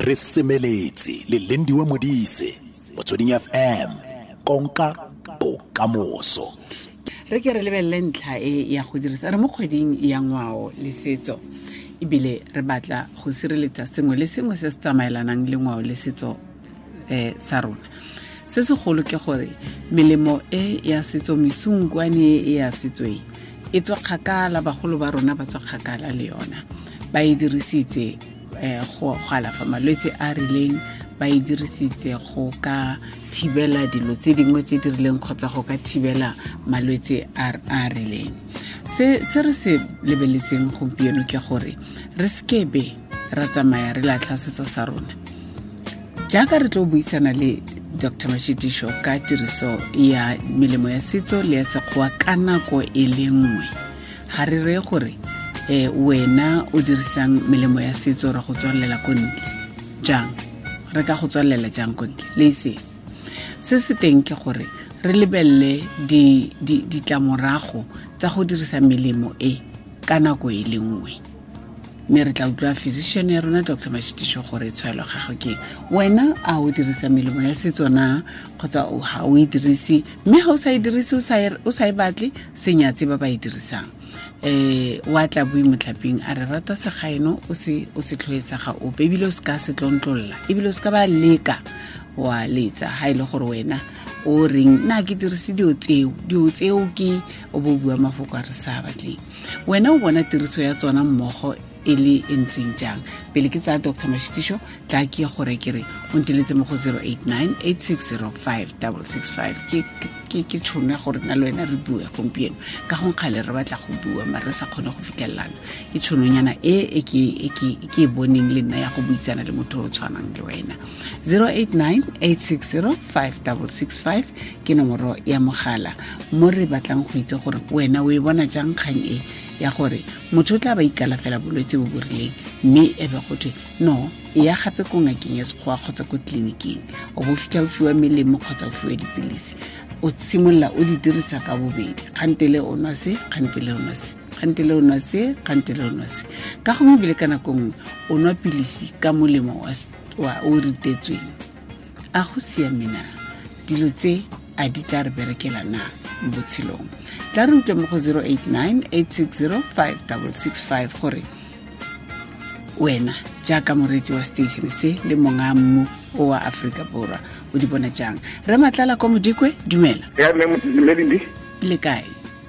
Re semeletse le Lindiwe Modise, Motsweding FM, konka bokamoso. Re ke re lebelele ntlha e ya go dirisa re mo kgweding ya ngwao le setso, ebile re batla go sireletsa sengwe le sengwe se se tsamaelanang le ngwao le setso sa rona. Se segolo ke gore melemo e ya setso, mesunkwane e ya setso e e tswa kgakala, bagolo ba rona ba tswa kgakala le yona, ba e dirisitse go alafa malwetse a rileng, ba e dirisitse go ka thibela dilo tse dingwe tse di rileng kgotsa go ka thibela malwetse a rileng. Se re se lebeletseng gompieno ke gore re sekebe ra tsamaya re latlha setso sa rona. Jaaka re tlo buisana le Dr. Mashitisho ka tiriso ya melemo ya setso le ya sekgowa ka nako e le nngwe, ga re reye gore wena o dirisang melemo ya setso re go tswalela ko ntle jang, re ka go tswalela jang ko ntle le ise. Se se teng ke gore re lebelele ditlamorago tsa go dirisa melemo e ka nako e le nngwe, mme re tla utlwa physician ya rona Dr. Mashitisho gore tshwaelo gagwe ke wena a o dirisa melemo ya setso na kgotsa ga o e dirise, mme ga o sa e dirise o sa e batle, senyatse ba ba e dirisang. Wa tla bui motlhaping a re rata segaeno o se tlhoetsa ga ope, ebile o se ka se tlontlolla, ebile o se ka ba leka wa letsa ha ile gore wena o reng nna ke dirise dilo tseo ke o bo bua mafoko a re sa batleng. Wena o bona tiriso ya tsona mmogo e le e ntseng jang? Pele ke tsaya Dr. Mashitisho, tla ke gore ke re o nteletse mo go 089 8605 665. Ke tšhono ya gore nna le wena re bue gompieno, ka gong kgale re batla go bua mare re sa kgone go fitlhelelana. Ke tšhononyana e ke e boneng le nna ya go buisana le motho o tshwanang le wena. 089 860 5665 ke nomoro ya mogala mo re batlang go itse gore wena o e bona jang kgang e ya gore motho o tla ba ikalafela bolwetse bo bo rileng, mme e be go thwe no e ya gape ko ngakeng ya sekgowa kgotsa ko tleliniking, o bo fitlha o fiwa melemo kgotsa o fiwa dipilisi, o simolola o di dirisa ka bobedi, kgantele o nwa se, kgantele o nwa se, kgantele o nwa se, kgantele o nwa se. Ka gongwe ebile ka nako nngwe o nwa pilisi ka molemo wa o ritetsweng. A go siame na? Dilo tse a di tla re berekela na mo botshelong? Tla re utlwe mo go 089 860 5665 gore wena jaaka moreetsi wa station se le monga mmu o wa Aforika Borwa o di bona jang. Re Matlala ko Modikwe, dumela. Ya mme Lindi. Le kae?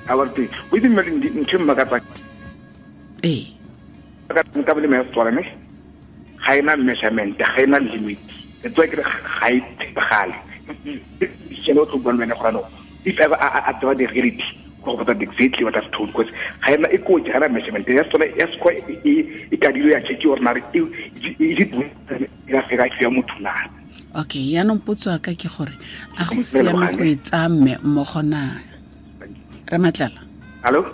A wa teng. O itse mme Lindi ntho e mmakatsa. Ee. Ka melemo ya Setswana ne ga ena measurement, ga ena limit. It's like ga e tshepagale. Ke no tlo bua le wena gore no if ever a tseba the reality go botsa exactly what I've told, because ga ena e kotsi, ga ena measurement ya Setswana ya Sekgowa e kadilwe ya check gore na re e ya fela ya motho na. Okay, yaanong potso ya ka ke gore a go siame go e tsaya mme mmogo na? Re Matlala. Hallo?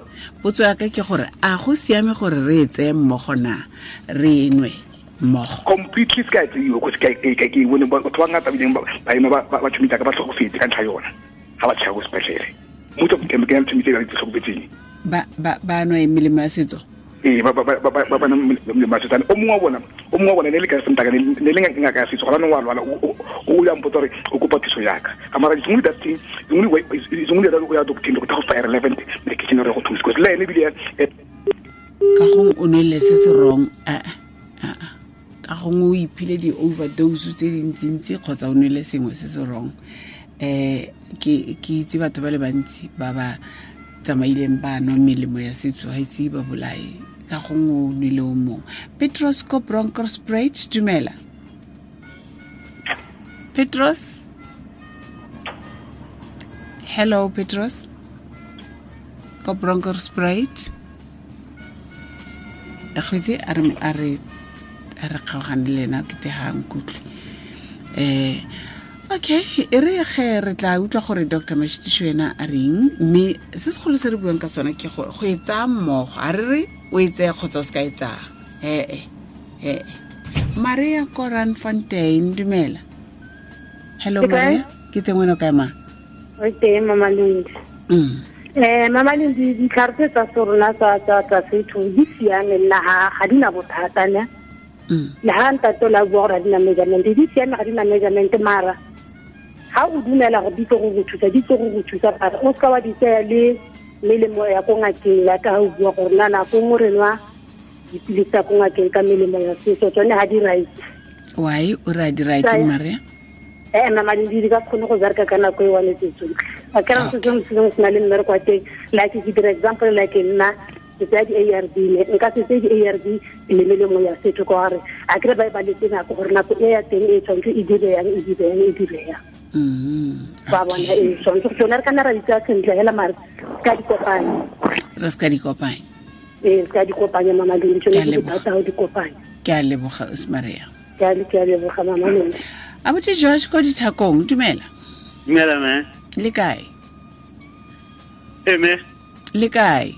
Potso ya ka ke gore a go siame gore re e tseye mmogo na, re nwe mmogo? Completely se ka e tseiwa, because ke bone batho ba ngata bileng ba ema ba tšhomisa ka ba tlhokofetse ka ntlha yona ga ba tšhaba ko sepetlele. Motho ke ke tšhomitse ka tlhokofetseng. Ba nwa melemo ya setso? Ee, ba ba melemo ya setso. O mongwe wa bona ne le ka sentaka ne le ngaka ya setso, gona nong wa lwala o ya mpotsa gore o kopa thuso yaka. Ka mara it's only that thing, it's only that o ya doctor go tla go fa relevant medication re go thusa, because le ene bile ka gong o nwele se se wrong. Ka gongwe o iphile di-overdose tse dintsintsi kgotsa o nwele sengwe se se wrong. Ke itse batho ba le bantsi ba ba tsamaileng ba nwa melemo ya setso ga ise ba bolae, ka gongwe o nwele o mongwe. Petros ko Bronkhorstspruit, dumela. Petros? Hello Petros ko Bronkhorstspruit. Kgwetse a re kgaogane le ena ke te ga nkutlwe. Okay, e re ge re tla utlwa gore Dr. Mashitisho ena a reng, mme se segolo se re buang ka sona ke gore go e tsaya mmogo, a re re o e tseye kgotsa o se ka e tsaya. Ee. Maria Koran Fontaine, dumela. Hello Maria, ke teng wena o kae ma? Re teng Mama Lindi. Mama Lindi, ditlhare tse tsa rona tsa setho di siame nna ga di na bothata ne. Le ha ntate la bua gore ga di na measurement, di siame ga di na measurement, mara ha o dumela gore di tlo go thusa, di tlo go thusa, mara o ska wa di tsaya le melemo ya ko ngakeng ya ka o bua gore nna nako nngwe re nwa dipilisi tsa ko ngakeng ka melemo ya setso, tsone ga di right. Why o re di right, Maria? Mama di ka kgone go bereka ka nako e one tse tsotlhe. A ke re se sengwe se na le mmereko wa teng, like ke dira example, like nna ke tsaya di-ARV, nka se tseye di-ARV le melemo ya setso ka gore a kere ba e baletse nako gore nako e ya teng e tshwanetse e dire yang, e dire yang, e dire yang. Ba bona e tshwanetse tsone re ka nna ra di tsaya sentle hela, mare ka di kopanya. Re se ka di kopanya. Ee, se ka di kopanya, Mama Lindi, tsone ke thata go di kopanya. Ke a leboga, Maria. Ke a leboga, Mama Lindi. Abuti George ko dithakong, dumela. Dumela, me. Le kae? Me. Le kae?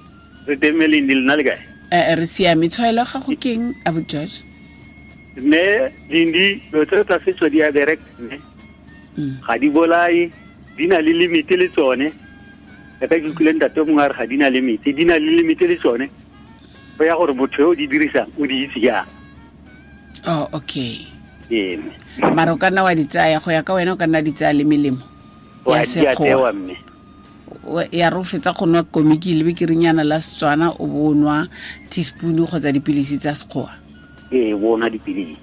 Re teng, me Lindi, le nna le kae? Re siame. Tshwaelo gago keng, Abuti George? Me Lindi, dilo tse tsa setso di a bereka, me. Ga di bolae, di na le limit le tsone. Ka ke utlwile ntate mongwe a re ga di na limit, di na le limit le tsone. Go ya gore motho yo o di dirisang o di itse jang. Oh, okay. Ee. Mara o ka nna wa di tsaya, go ya ka wena o ka nna di tsaya le melemo ya sekgowa. Ya re o fetsa go nwa komiki le bekerinyana la Setswana, o bo nwa teaspoon kgotsa dipilisi tsa sekgowa. Ee, bo nwa dipilisi.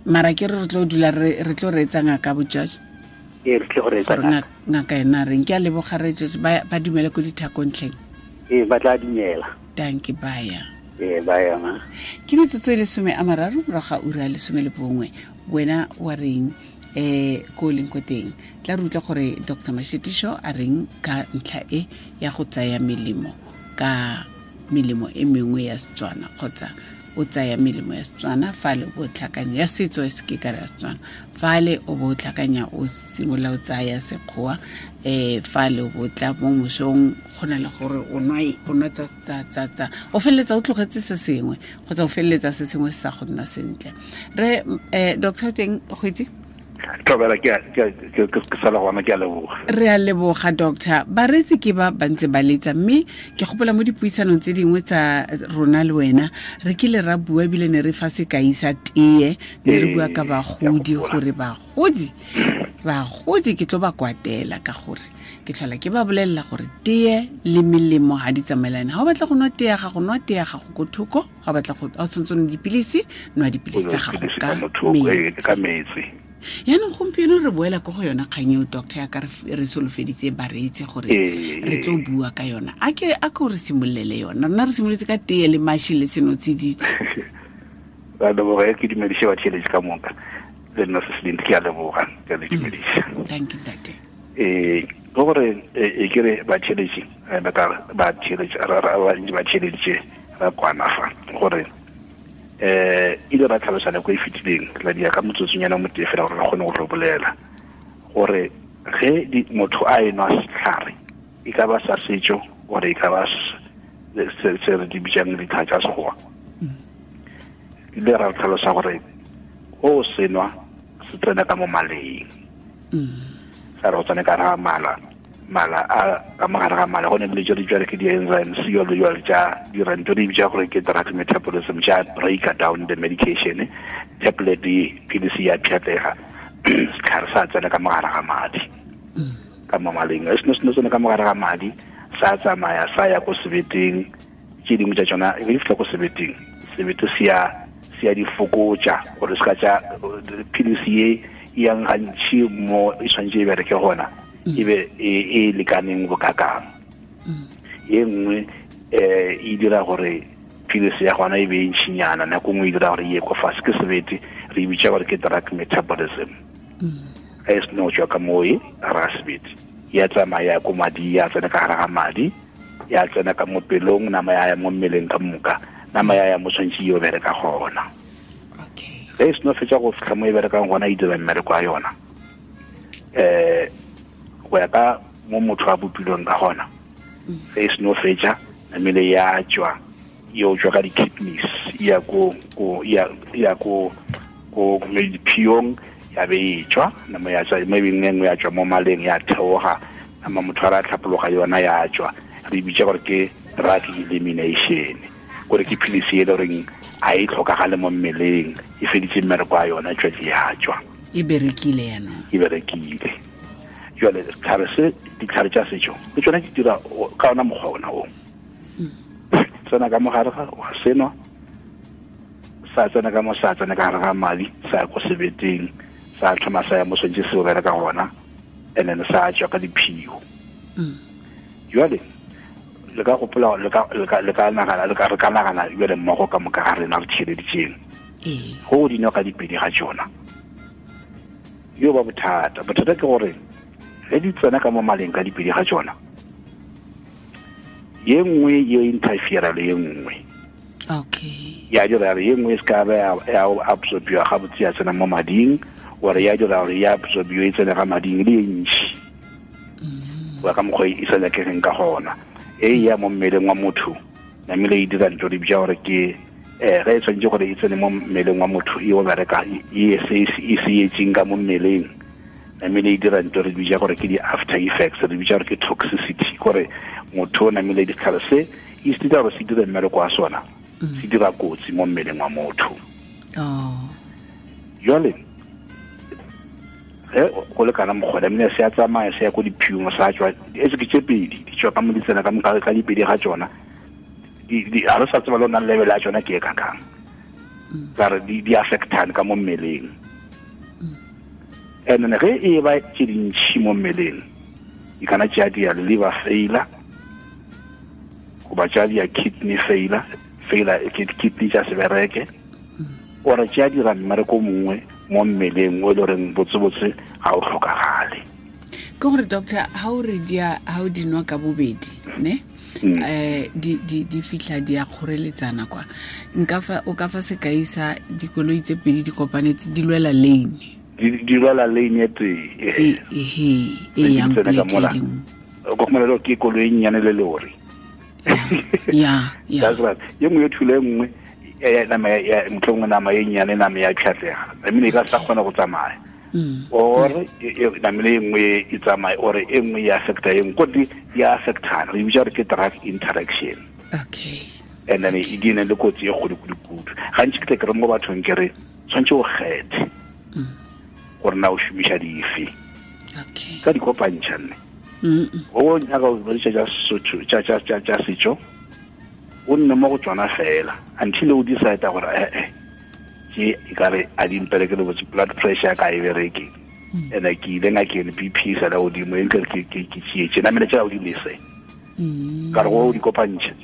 Mara ke re tlo dula re tlo reetsa ngaka bo George. Ee, re tlo reetsa ngaka. Ngaka ena reng ke a leboga re George, ba dumele ko dithakontlheng. Ee, ba tla dumela. Thank you, bye. Ee, bye, ma. Ke metsotso e 30 morago ga ura ya 11. Wena wa reng ko leng ko teng? Tla re utlwa gore Dr. Mashitisho a reng ka ntlha e ya go tsaya melemo ka melemo e mengwe ya Setswana, kgotsa o tsaya melemo ya Setswana fale o tlhakanya ya setso e se ke ka ya Setswana, fale o bo tlhakanya o simolola o tsaya sekgowa, fale o bo tla mo mosong go na le gore o nwa tsa o feleletsa o tlogetse se sengwe kgotsa o feleletsa se sengwe se sa go nna sentle. Re Dr. Teng go itse Tlobela ke sala gona, ke a leboga. Re a leboga, doctor. Bareetsi ke ba bantse ba letsa, mme ke gopola mo dipuisanong tse dingwe tsa rona le wena re kile ra bua ebile ne re fa sekai sa tee, ne re bua ka bagodi gore bagodi ke tlo ba kwatela ka gore ke tlhola ke ba bolelela gore tee le melemo ga di tsamaelane. Ga o batla go nwa tee ya gago, nwa tee ya gago ko thoko. Ga o batla go tshwanetse nwa dipilisi, nwa dipilisi tsa gago ka metsi. Yaanong gompieno re boela ko go yona kgang eo, doctor, ya ka re solofeditse bareetsi gore re tlo bua ka yona. A ke re simolele yona. Rona re simoletse ka tee le mashi le senotsididi. Ba leboga, ke dumedise batheeletsi ka moka. Le nna se seleng ke a leboga, ke a le dumedisa. Thank you, tate. Go gore e ke re batheeletsi, batheeletsi batheeletsi ra kwana fa gore ile ra tlhalosa nako e fetileng la dia ka motsotsonyana mo tee fela gore re kgone go bolela gore ge motho a enwa setlhare e ka ba sa setso gore e ka ba se re di bitsang ditlhare tsa sekgowa, ile ra tlhalosa gore o senwa se tsena ka mo maleng, sa re o tsene ka ra mala mala a ka mogare ga mala go ne le jalo jalo ke di-enzymes jalo jalo tša dira ntho di bitsa gore ke drug metabolism tša break down the medication, tablet pilisi ya pšhatlega, setlhare sa tsena ka mogare ga madi ka mo maleng. E seno tsene ka mogare ga madi sa tsamaya sa ya ko sebeteng, tše dingwe tša tsona e fitlha ko sebeteng, sebete se ya di fokotša gore se ka tša pilisi ye e yang gantši mo e tshwanetse e bereke gona e be e lekaneng bokakang. Ye nngwe e dira gore pilisi ya gona e be e ntšhinyana, nako nngwe e dira gore e ye ko fase ke sebete, re e bitša gore ke drug metabolism. Ga e seno tswa ka moo e ra sebete ya tsamaya ko madi, ya tsena ka gare ga madi, ya tsena ka mo pelong, nama ya ya mo mmeleng ka moka, nama ya ya mo tshwanetse e yo bereka gona. Ge e seno fetsa go fitlha mo e berekang gona, e dira mmereko wa yona go ya ka mo motho a bopilweng ka gona. Ge e seno fetsa namele ya tswa, yo tswa ka di-kidneys ya ko diphiong, ya be e tswa nama ya tswa, maybe nngwe ya tswa mo maleng ya theoga, nama motho a ra tlhapologa yona ya tswa. Re bitsa gore ke drug elimination, gore ke pilisi e le goreng a e tlhokagale mo mmeleng, e feditse mmereko wa yona, tšwetse ya tswa, e berekile yanong, e berekile. Jwale setlhare se, ditlhare tša setšo le tsona di dira ka ona mokgwa ona o. Tsena ka mogare ga wa senwa, sa tsena ka mo, sa tsena ka gare ga madi, sa ya ko sebeteng, sa thoma sa ya mo swantse se o bereka gona, and then sa tswa ka diphio. Jwale le ka gopola, le ka nagana, le ka re ka nagana jwale mmogo ka moka ga rena re tšheleditšeng go di nwa ka dipedi ga tšona, yo ba bothata. Bothata ke gore ge di tsena ka mo maleng ka dipedi ga tšona, ye nngwe ye interfere le ye nngwe. Okay. Ya dira gore ye nngwe e se ka ba ya absorbiwa gabotse ya tsena mo mading, ore ya dira gore ya absorbiwa e tsene ga mading le e ntšhi go ya ka mokgwa e sa nyakegeng ka gona. E ya mo mmeleng wa motho namile e dira ntho di bitsa gore ke ge e tshwanetse gore e tsene mo mmeleng wa motho e o bereka e se etseng ka mo mmeleng, namile e dira ntho re bitsa gore ke di-after effects, re bitsa gore ke toxicity, gore motho o namile ditlhare se e se dira gore se dire mmereko wa sona, se dira kotsi mo mmeleng wa motho. Jwale ge go le kana mokgwa namile se a tsamaya se ya ko diphiong, sa tswa e se ke tse pedi di tswa ka mo di tsena ka mo ka dipedi ga tsona, ga re sa tseba le nang level ya tsona ke e kakang, ka re di affectane ka mo mmeleng. And then ge e ba tse dintšhi mo mmeleng, e kana tša dia liver failure goba tša dia kidney failure, kidney tša se bereke, ore tša dira mmereko mongwe mo mmeleng o e le goreng botsebotse ga o tlhokagale. Ke gore doctor, ha o re dia, ha o di nwa ka bobedi ne, di fitlha di a kgoreletsana kwa, nka fa o ka fa sekai sa dikoloi tse pedi di kopanetse di lwela lane, di lwela lane e tee e yang pleke e nngwe, go khumana ke koloi e nnyane le lori. Ya that's right. Ye nngwe e thule e nngwe nama ya motlhongwe, nama e nnyane, nama ya pšhatlega, namile e ka sa kgona go tsamaya, or namile e nngwe e tsamaye, or e nngwe e affecta e nngwe, kote di affectana, re bitsa gore ke drug interaction. Okay. And then e di ne le kotsi e kgolo kudu-kudu. Gantši ke tle ke re mo bathong ke re tshwanetse o kgethe gore na o šomiša dife. Okay. Ka di kopantšha nne. O nyaka go berekisa tša Sesotho tša setšo, o nne mo go tsona fela until o decide gore ke e ka re a di mpereke le botse, blood pressure ka e bereke, and ke ile ngakeng BP sa la godimo, e nkere ke tšeetše namele tša o di lese, ka re go di kopantšha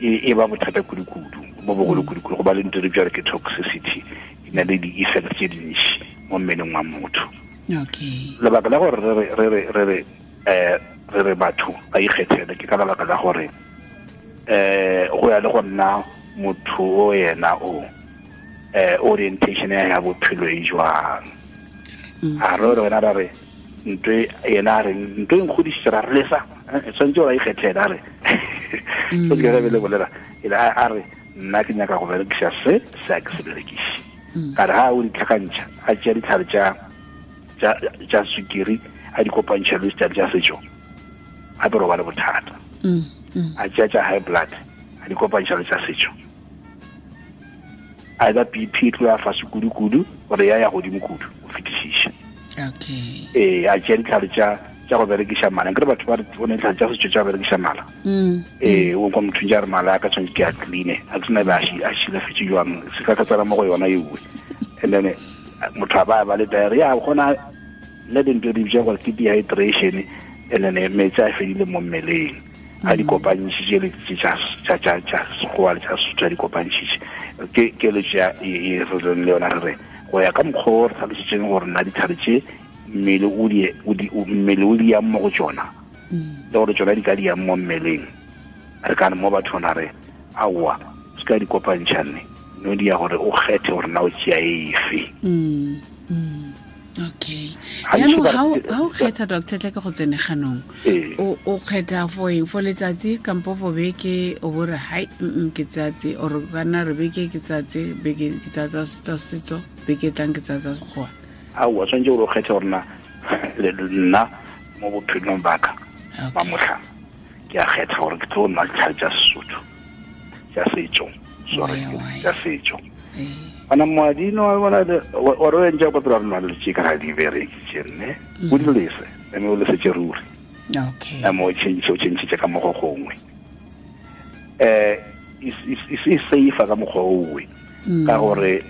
e ba bothata kudu-kudu bo bogolo kudu-kudu, go ba le ntho re bitsa gore ke toxicity, e na le di-effect tse dintši mo mmeleng wa motho. Okay. Lebaka la gore re re batho ba ikgethele ke ka lebaka la gore go ya le go nna motho o yena o orientation ya bophelo e jwang. A re wena ra re ntho yena a re ntho e nkgodisitse ra re lesa, tshwanetse gore a ikgethele, a re so ke re le bolela a re nna ke nyaka go berekisa se se a ke se berekiše. Ka re ha o di tlhakantšha, a tšea ditlhare tša sukiri a di kopantšha le ditlhare tša setšo, gape re ba le bothata. A tšea tša high blood a di kopantšha le tša setšo, either BP e tlo ya fase kudu-kudu gore ya ya godimo kudu go fetišiša. Okay. A tšea ditlhare tša go berekiša mala, nkere batho ba re o ne ditlhare tša setšo tša go berekiša mala. O kwa motho ntse a re mala a ka tshwanetse ke a cleane, a ke sena be a šilafetse jwang, se ka ka tsena mo go yona ewe. And then motho a ba le diarrhea, gona le dintho di bitsa gore ke dehydration, and then metsi a fedile mo mmeleng, a di kopantšhitše le tša Sekgowa le tša Sesotho a di kopantšhitše. Ke keletšo ya e re leng le yona, re re go ya ka mokgwa o re tlhalositseng gore nna ditlhare tše mmele o di yang mo go tsona, le gore tsona di ka di yang mo mmeleng, re ka re mo bathong ra re aowa se ka di kopantšha nne, no di ya gore o kgethe gore na o tšea efe. Okay. Yaanong ha o kgetha doctor, tla ke go tsene ganong, o kgetha for eng, for letsatsi kampo for beke, o bo re hai ke tsatsi, or kana re beke ke tsatsi, beke ke tsatsa tsa setso, beke tlang ke tsatsa Sekgowa? Aowa, tshwanetse gore o kgethe gore na nna mo bophelong ba ka ba motlha ke a kgetha gore ke tlo nwa ditlhare tša Sesotho tša setšo, Sorry, tša setšo. Bana moadino wa bona o re ntša kwa pele rena le tše ka ga di bereke tše nne. O di lese, mme o lese tše ruri. Okay. Mme o change, o change tše ka mo go gongwe. E safe ka mokgwa owe. Ka gore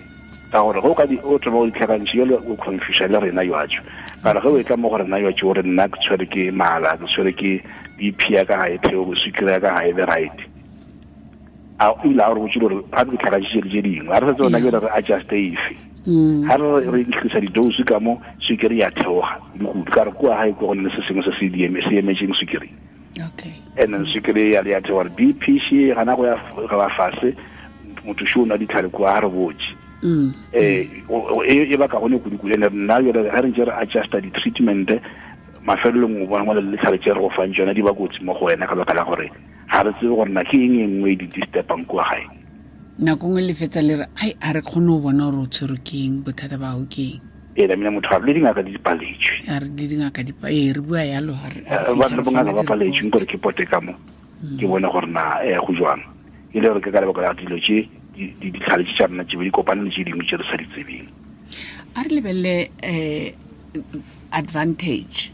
go ka di o tlo o ditlhakantšhe yo o confuse le rena yo atšo. Ka re ge o etla mo go rena yo atšo gore nna ke tshwere ke mala, ke tshwere ke BP ya ka ga e theoge, sukiri ya ka ga e be right. A o ile a re botse gore ga ke tlhakantšhe tše dingwe, a re setse rena ke re adjust efe. Ha re increase di-dose ka mo, sukiri ya theoga kudu. Ka re kua gae ko go ne le se sengwe se se se emetseng sukiri. Okay. And then sukiri ya le ya theoga, BP she gana go ya ga fase, motho sho o nwa ditlhare kua, ha re botse. E ba ka gone kudu-kudu. And nna jwale ga re ntse re adjusta di-treatment, mafelelong o bona mo le ditlhare tse re go fang tsona di ba kotsi mo go wena ka baka la gore ga re tsebe gore na ke eng e nngwe e di disturbang kua gae. Nako nngwe le fetsa le re, ai, a re kgone go bona gore o tshwerwe ke eng, bothata ba gago ke eng. Ee, la mina motho a re le dingaka di paletswe. A re le dingaka di ee, re bua yalo, ha re, ha re Ba fitlha re bongaka ba re paletswe, nkore ke pote ka mo, ke bone gore na, go jwang. E le gore ke ka lebaka la dilo tše, ditlhare tše tša rena tše be di kopane le tše dingwe tše re sa di tsebeng. A re lebelele, advantage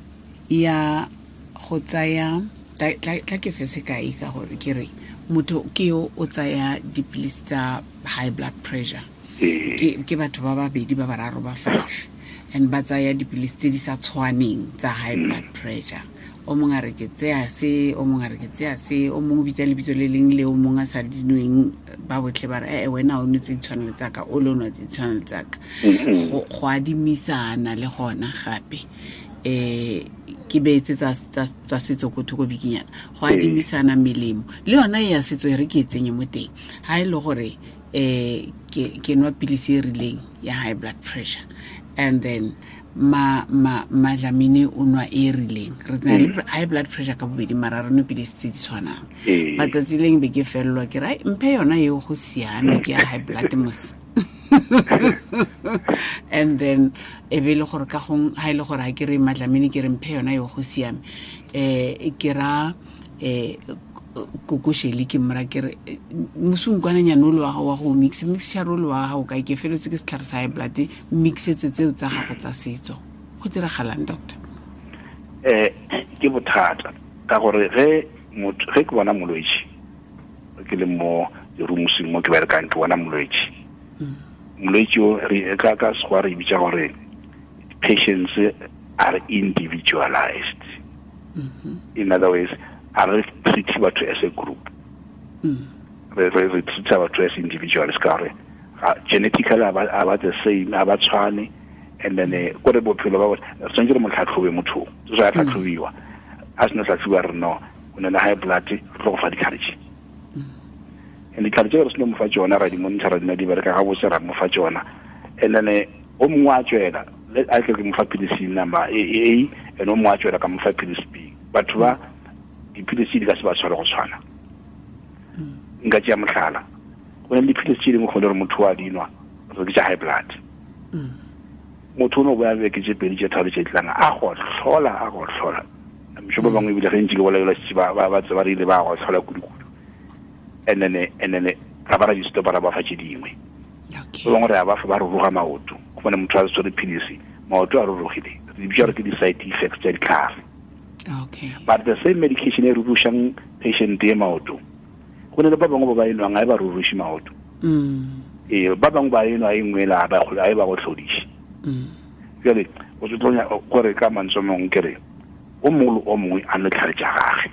ya go tsaya, tla ke fe sekai ka gore ke re motho ke yo o tsaya dipilisi tsa high blood pressure. Ke batho ba babedi ba bararo ba 5, and ba tsaya dipilisi tse di sa tshwaneng tsa high blood pressure. O mongwe a re ke tseya se, o mongwe a re ke tseya se, o mongwe o bitsa lebitso le leng le o mongwe a sa dinweng, ba botlhe ba re, wena o nwe tse di tshwanang le tsaka, o le o nwa tse di tshwanang le tsaka. Go adimisana le gona gape. Ke beetse tsa setso ko thoko bikinyana. Go adimisana melemo. Le yona ya setso e re ke e tsenye mo teng. Ha e le gore, ke nwa pilisi e rileng ya high blood pressure, and then Madlamini o nwa e rileng. Re na le high blood pressure ka bobedi, mara re nwe pilisi tse di tshwanang. Matsatsi leng be ke fellwa ke re, ai, mphe yona eo go siame, ke ya high blood mos. And then e be le gore ka gong ha e le gore ha ke re Madlamini ke re mphe yona eo go siame, ke ra, kokoshele ke mmora ke re, mosunkwananyana o le wa gago wa go mix, mixture o le wa gago kae, ke feletse ke setlhare sa high blood, mixetse tseo tsa gago tsa setso. Go diragalang, doctor? Ke bothata ka gore ge motho, ge ke bona molwetši, ke le mo roomseng mo ke berekang, ke bona molwetši. Molwetši o, re, ka Sekgowa re bitsa gore patients are individualized. In other words, a re treat batho as a group. Re treat batho as individuals ka gore genetically a ba the same, a ba tshwane, and then, kore bophelo ba bona, re tshwanetse re mo tlhatlhobe motho, so a tlhatlhobiwa. A sena tlhatlhobiwa re no, o na le high blood, re tlo go fa ditlhare tše. And ditlhare tše re seno mo fa tsona, ra di monitor, ra di na di bereka gabotse, ra mo fa tsona. And then, o mongwe a tswela, le a tle ke mo fa pilisi number A, and o mongwe a tswela ka mo fa pilisi B. Batho ba dipilisi di ka se ba tshware go tshwana. Nka tšea mohlala, go na le dipilisi tše dingwe go le gore motho wa di nwa, re ke tša high blood. Motho o no boya beke tše pedi tše tharo tše tlang, a go hlola, a go hlola. Mšo ba bangwe ebile ge ntše ke bolaelwa šetše ba tseba re ile ba go hlola kudu-kudu. And then, ra ba ra di stopa, ra ba fa tše dingwe. Ba bangwe re a ba fa, ba ruruga maoto. Go bone motho a tshwere pilisi, maoto a rurugile. Re di bitsa gore ke di-side effects tša ditlhare. But the same medication e rurušang patient e maoto, go na le ba bangwe ba ba e nwang, ga e ba ruruše maoto. Ba bangwe ba e nwa e nngwe la, ba e ba go hlodiše. Jwale, o se tlo gore ka mantswe a mangwe ke re, o mongwe le o mongwe a nwe tlhare tša gagwe.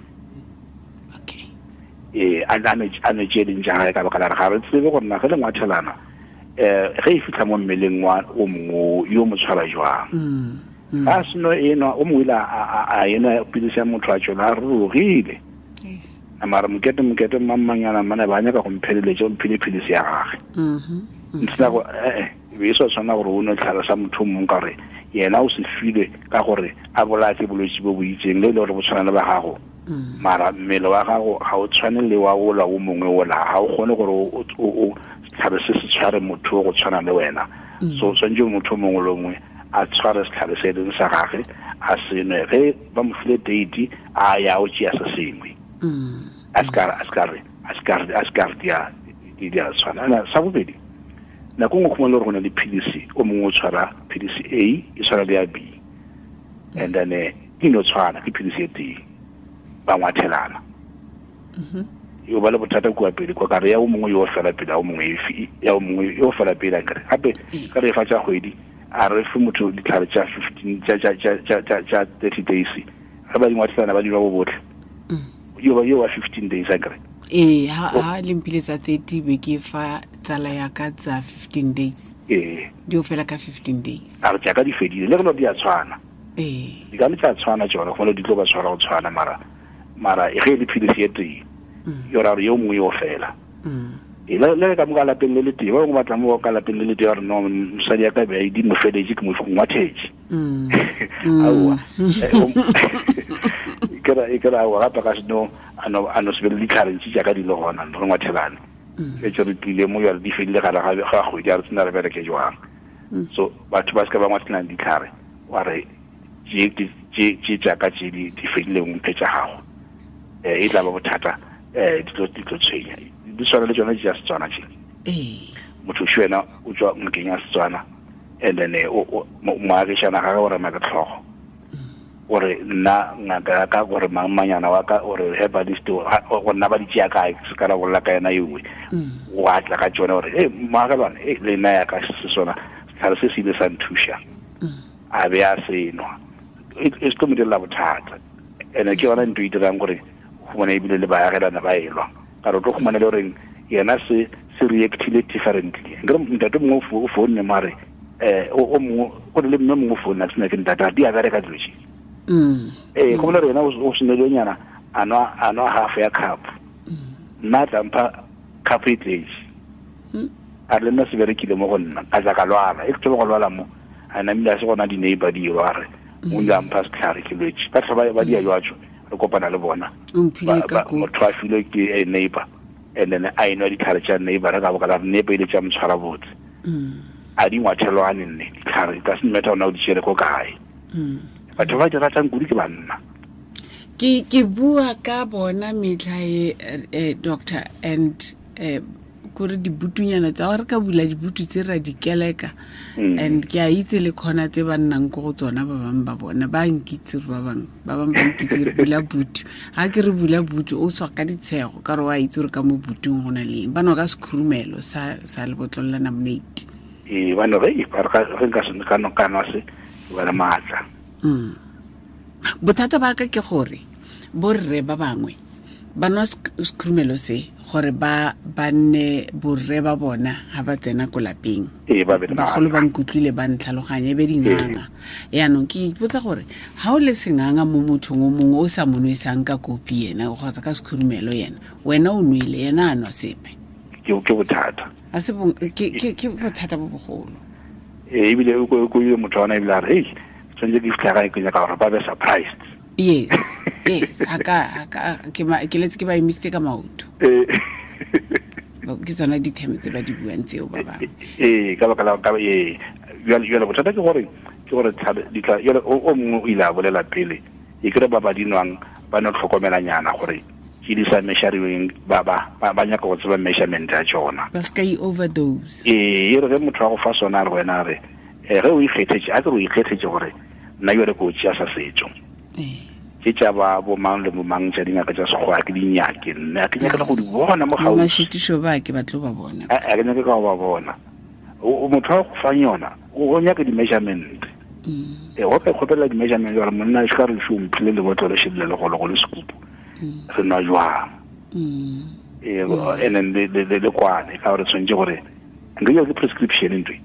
A nwe tše ding tša gagwe ka baka la gore ga re tsebe gore na ge le ngwathelana, ge e fihla mo mmeleng wa o mongwe yo mo tshwara jwang. A seno e nwa, o mongwe ile a enwa pilisi ya motho a tšwela a rurugile. Mara mokete mmangmanyana mmane ba nyaka go mpheleletša, o mphile pilisi ya gagwe. Ntsena go, e be e sa tshwana gore o nwe tlhare sa motho o mongwe ka gore yena o se filwe ka gore a bolaye ke bolwetsi bo bo itseng, le e le gore bo tshwana le ba gago. Mara mmele wa gago ga o tshwane le wa ola o mongwe ola, ga o kgone gore o setlhare se se tshware motho o go tshwana le wena. So tshwanetse motho o mongwe le mongwe a tshware setlhare se e leng sa gagwe, a se nwe. Ge ba mo file date, a ya o tšea se sengwe. A se ka re, a se ka re, a se ka re, a se ka re Di a tshwana. Sa bobedi, nako nngwe khumana gore go na le philisi, o mongwe o tshwara philisi A e tshwana le ya B, and then di no tshwana, ke philisi e tee, ba ngwathelana. Yo ba le bothata kua pele kwa kare ya o mongwe yo fela pele, ya o mongwe ya o mongwe yo fela pele, akere gape ka re fa tsa kgwedi a re fe motho ditlhare tsa 15 tsa 30 days, ga ba di ngwathelana ba di nwa bo botlhe. Yo wa 15 days akere. Ee, ha le mphile tsa 30 be ke fa tsala ya ka tsa 15 days. Ee. Di o fela ka 15 days. A re jaaka di fedile, le re di a tshwana. Ee. Di ka le tsa tshwana tsone, go le di tlo ba tshwara go tshwana, mara e ge le philisi e tee. Yo ra re yo mongwe yo fela. E le ka mo ka lapeng le le tee, ba bangwe ba tla mo ka lapeng le le tee ba re no, mosadi ya ka be a di mo feletse, ke mo ngwathetse. Aowa. E ke ra aowa gape ka seno a no se be le ditlhare ntsi jaaka di le gona, re ngwathelane. E tse re tlile mo jale di fedile gare ga kgwedi, a re tsena re bereke jwang. So batho ba se ka ba ngwathelang ditlhare, wa re tše jaaka tše di fedileng mphe tša gago. E tla ba bothata, di tlo tshwenya. Di tshwana le tsone tša Setswana tše. Motho šo wena o tswa ngakeng ya Setswana, and then moagišana gage o rema ke tlhogo. O re nna ngaka ya ka, gore mang manyana wa ka, o re herbalist, go nna ba di tšea kae, se ka ra bolela ka yena ewe. O a tla ka tšone gore e moagelwane, e le nna ya ka se sona setlhare se se ile sa nthuša. A be a se nwa. E se tlo mo direla bothata. Ene ke yona ntho e dirang gore humana ebile le baagelana ba elwa. Ka re o tlo humana le goreng yena se reactile differently. Nkere ntate mongwe o founne mo a re, o mongwe, go le mme mongwe o founne, a ke sena ke ntate, a di a bereka dilo tše. Go bolela gore yena o senelenyana, a nwa half ya cup. Nna a tla mpha cup e tletse. A re le nna se berekile mo go nna, ka tla ka lwala. E ke thoma go lwala mo, a namile a se gona di-neighbor di elwa, a re, o ile a mpha setlhare ke lwetse. Ba tlhoba ba dia jwatso, re kopana le bona. Motho a filwe ke a neighbor, and then a enwa ditlhare tša neighbor, re ka boka la re neighbor ile tša motshwara botse. A di ngwathelwane nne ditlhare, ka se matter ona o di tšere ko kae. Batho ba di ratang kudu ke banna. Ke bua ka bona metlha e, doctor, and kore dibutunyana tsa gore ka bula dibutu tse ra di keleka, and ke a itse le khona tse ba nnang ko go tsona ba bangwe ba bona ba nkitse gore ba bangwe ba nkitse re bula butu. Ha ke re bula butu o tswa ka ditshego ka re wa itse gore ka mo butung go na le eng. Ba nwa ka sekhurumelo sa lebotlolo la namonate. Ee, ba no re re nka se ka no ka nwa se ba le maatla. Bothata ba ka ke gore borre ba bangwe ba nwa sekhurumelo se gore ba nne borre ba bona ha ba tsena ko lapeng. Bagolo ba nkutlwile ba ntlhaloganya e be dinganga. Yaanong ke ipotsa gore ha o le senganga mo mothong o mongwe o sa mo nwesang ka kopi yena kgotsa ka sekhurumelo yena, wena o nwele yena a nwa sepe. Ke bothata. A se ke bothata bo bogolo. Ebile o ko ile motho wa ona ebile a re, hei, tshwanetse ke fitlha gae ke nyaka gore ba be surprised. Yes, yes. Aka ke letse ke ba emisitse ka maoto. Ke tsona ditheme tse ba di buang tseo ba bangwe. Ee, ka baka la ka ee. Jwale bothata ke gore ditla jwale o mongwe o ile a bolela pele. E kere ba ba dinwang ba no tlhokomelanyana gore ke di sa measuring ba nyaka go tseba measurement ya tsona. Ba ska i overdose. Ee, e re ge motho wa go fa sona re wena re ge o ikgethetse, a ke re o ikgethetse gore nna jwale ke o tšea sa setso. Ke tša ba bo mang le bo mang tša dingaka tša sekgowa ke di nyake nna, ke nyaka le go di bona mo gaufi. Mašitišo ba ke ba tlo ba bona. A ke nyake ka go ba bona. O motho wa go fa yona, o nyaka di-measurement. Go ka ikgopela di-measurement gore monna e se ka re šo mphile lebotlolo šedile legolo go le sekupu. Re nwa jwang. And then le kwane ka gore tshwanetse gore nka ke prescription ntwe.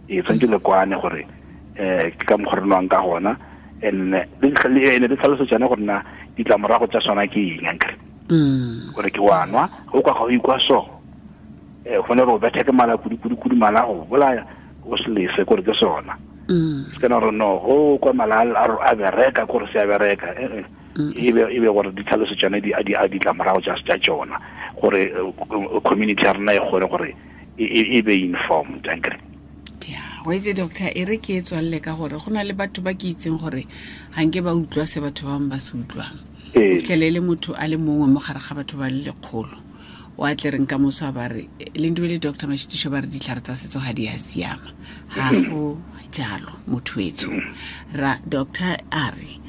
Tshwanetse le kwane gore ke ka mokgwa re nwang ka gona. And le tlhaloso tsone gore na ditlamorago tsa sona ke eng ankere. Gore ke wa nwa, o kwa ga o ikwa so. Go ne re o bethe ke mala kudu kudu kudu mala go bolaya o se lese gore ke sona. Se kana re no go kwa mala a bereka gore se a bereka. E be gore ditlhaloso tsone di a ditlamorago tsa tsona gore community ya rena e kgone gore e be informed ankere. Wa itse doctor, e re ke e tswalle ka gore go na le batho ba ke itseng gore ga nke ba utlwa se batho ba bangwe ba se utlwang. O fitlhele le motho a le mongwe mo gare ga batho ba le lekgolo. O a tle reng ka moso a ba re Lindiwe le Dr Mashitišo ba re ditlhare tsa setso ga di a siama. Ga go jalo, motho etsho. Ra doctor a re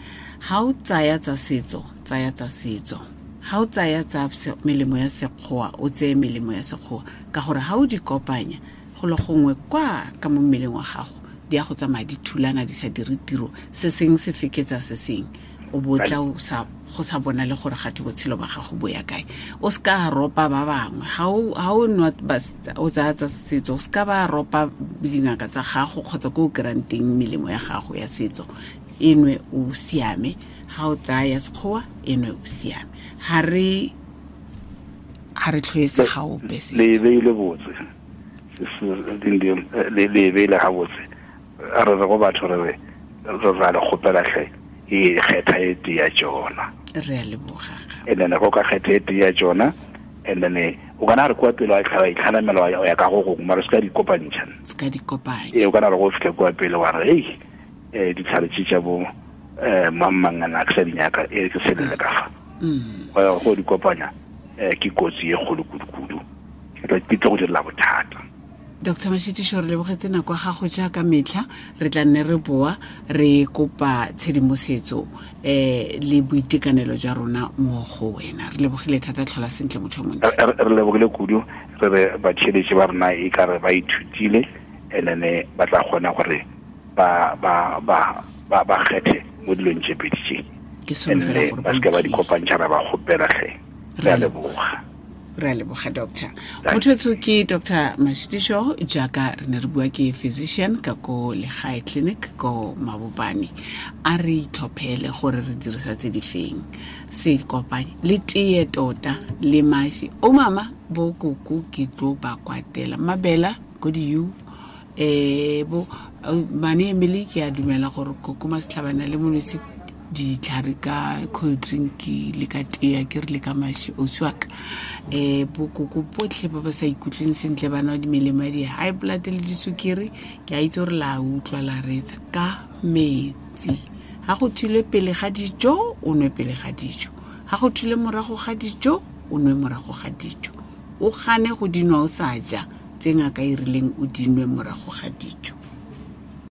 ga o tsaya tsa setso, tsaya tsa setso. Ga o tsaya tsa melemo ya sekgowa, o tseye melemo ya sekgowa, ka gore ga o di kopanya go le gongwe kwa ka mo mmeleng wa gago, di ya go tsamaya di thulana, di sa dire tiro, se seng se feketsa se seng, o botla o sa go sa bona le gore gate botshelo ba gago bo ya kae. O se ka ropa ba bangwe ga o nwa o tsaya tsa setso, o se ka ba ropa dingaka tsa gago kgotsa ko o kry-ang teng melemo ya gago ya setso. E nwe o siame. Ga o tsaya ya sekgowa, e nwe o siame. Ga re tlhoetse ga ope setso. Le beile botse, le beile ga botse. A re re go batho, re re ra le kgopela tlhe, e kgetha e tee ya tsona. Re a leboga. And then go ka kgetha e tee ya tsona, and then o kana re kwa pele wa itlhanamela wa ya ka go gongwe, mara se ka di kopantšha. Se ka di kopanya. Ee, o kana re go fitlha kwa pele wa re ei, ditlhare tse tša bo mang-mangana ke sa di nyaka, e ke selele ka fa. Go ya go di kopanya, ke kotsi e kgolo kudu-kudu, ke tlo go direla bothata. Dr Mashitišo, re lebogetse nako ya gago jaaka metlha. Re tla nne re boa re kopa tshedimosetso le boitekanelo jwa rona mo go wena. Re lebogile thata, tlhola sentle motho o montle. Re lebogile kudu, re re batheeletši ba rena e ka re ba ithutile, and then ba tla kgona gore ba kgethe mo dilong tše pedi tše. Ke solofela gore ba se ke ba di kopantšha, ra ba kgopela tlhe. Re a leboga. Re a leboga, doctor. Motho ke Dr Mashitišo, jaaka re ne re bua, ke physician ka ko Legae Clinic ko Mabopane. A re itlhophele gore re dirisa tse di feng, se kopanye le tee tota le maši. O mama bo koko ke tlo ba kwatela mabela ko di-u bo mane Emily, ke a dumela gore koko Masetlhabana le molwetse ditlhare ka cold drink le ka tea, ke re le ka maši ausi wa ka. Bokoko botlhe ba ba sa ikutlweng sentle, ba nwa dimelemo ya di-high blood le disukiri, ke a itse gore la utlwa la reetsa. Ka metsi, ga go thulwe pele ga dijo, o nwe pele ga dijo, ga go thulwe morago ga dijo, o nwe morago ga dijo. O gane go dinwa o sa ja tse ngaka e rileng o dinwe morago ga dijo.